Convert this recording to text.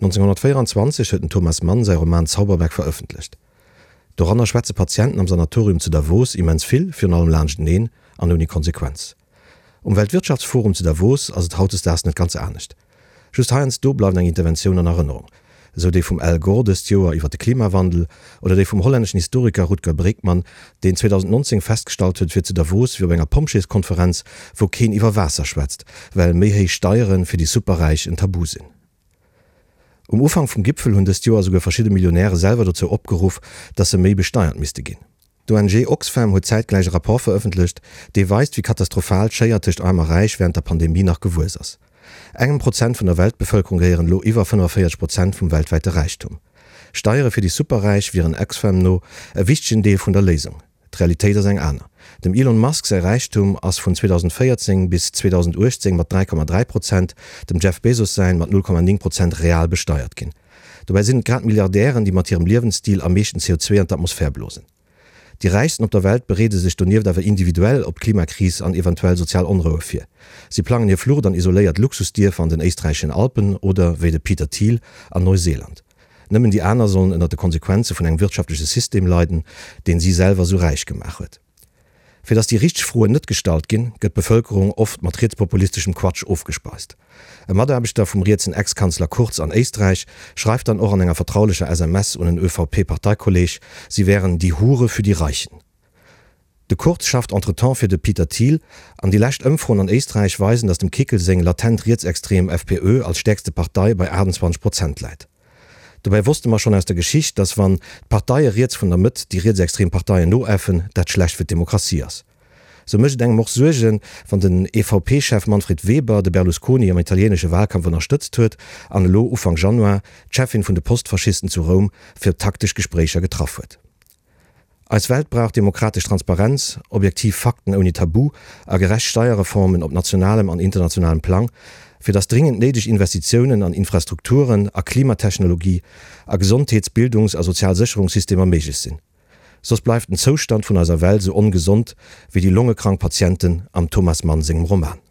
1924 huet den Thomas Mann säi Roman Zauberberg verëffentlecht. Doranner schwätze Patienten am Sanatorium zu Davos immens vill, virun allem laanschteneen an ouni Konsequenz. Um Weltwirtschaftsforum zu Davos ass et hautdesdaags net ganz anescht. Just heiansdo bleift eng Interventioun an Erënnerung, esou déi vum Al Gore dëst Joer iwwer de Klimawandel oder déi vum hollänneschen Historiker Rutger Bregman, deen 2019 festgestallt huet, et wier zu Davos wéi op enger Pompjeeskonferenz, wou keen iwwer Waasser schwätzt, well méi héich Steiere fir déi Superräich en Tabu sinn. Um Ufank vum Gipfel hunn dëst Joer esouguer verschidde Millionäre selwer dozou opgeruff, datt se méi besteiert misste ginn. D'ONG Oxfam huet zäitgläich e Rapport verëffentlecht, dee weist, wéi katastrophal d'Schéier tëscht Aarm a Räich wärend der Pandemie nach gewuess ass. Engem Prozent vun der Weltbevëlkerung gehéieren elo iwwer 45 Prozent vum weltwäite Räichtum. Steiere fir déi Superräich wieren Oxfam no e wichtegen Deel vun der Léisung. D'Realitéit ass eng aner. Dem Elon Musk säi Räichtum ass vun 2014 bis 2018 mat 3,3 Prozent, dem Jeff Bezos säin mat 0,9 Prozent real besteiert ginn. Dobäi sinn et grad d'Milliardären, déi mat hirem Liewensstil am meeschten CO2 an d'Atmosphär blosen. Déi Räichsten op der Welt bereede sech donieft awer individuell op d'Klimakris an eventuell sozial Onroue vir. Si plangen hir Flucht an isoléiert Luxusdierfer an den éisträicheschen Alpen oder, wéi de Peter Thiel, an Neuseeland. Nëmmen déi aner sollen ënner de Konsequenze vun engem wirtschaftleche System leiden, deen si selwer sou räich gemaach huet. Fir datt déi richteg Froen net gestallt ginn, gëtt d'Bevëlkerung oft mat rietspopulisteschem Quatsch ofgespeist. E Mataarbechter vum rietsen Ex-Kanzler Kurz an Éisträich schreift dann och an enger vertraulecher SMS un en ÖVP-Parteikolleeg, si wären die Hure für die Reichen. De Kurz schafft entretemps fir de Peter Thiel, an déi lescht Ëmfroen an Éisträich weisen, datt dem Kickl seng latent rietsextrem FPÖ als stäerkste Partei bei 28 Prozent läit. Dobäi wosste mer schonn aus der Geschicht, datt wann d'Parteie riets vun der Mëtt déi rietsextrem Parteien noäffen, dat schlecht fir d'Demokratie ass. Sou mécht et engem och Suergen, wann den EVP-Chef Manfred Weber de Berlusconi am italienesche Wahlkampf ënnerstëtzt huet an elo Ufank Januar d'Cheffin vun de Postfaschisten zu Roum fir taktesch Gespréicher getraff huet. Eis Welt brauch demokratesch Transparenz, objektiv Fakten ouni Tabu a gerecht Steierreformen op nationalem an internationalem Plang, fir datt dringend néideg Investitiounen an Infrastrukturen, a Klimatechnologie, a Gesondheets-, Bildungs a Sozialsécherungssystemer méiglech sinn. Soss bleift den Zoustand vun eiser Welt sou ongesond wéi déi longekrank Patienten am Thomas Mann sengem Roman.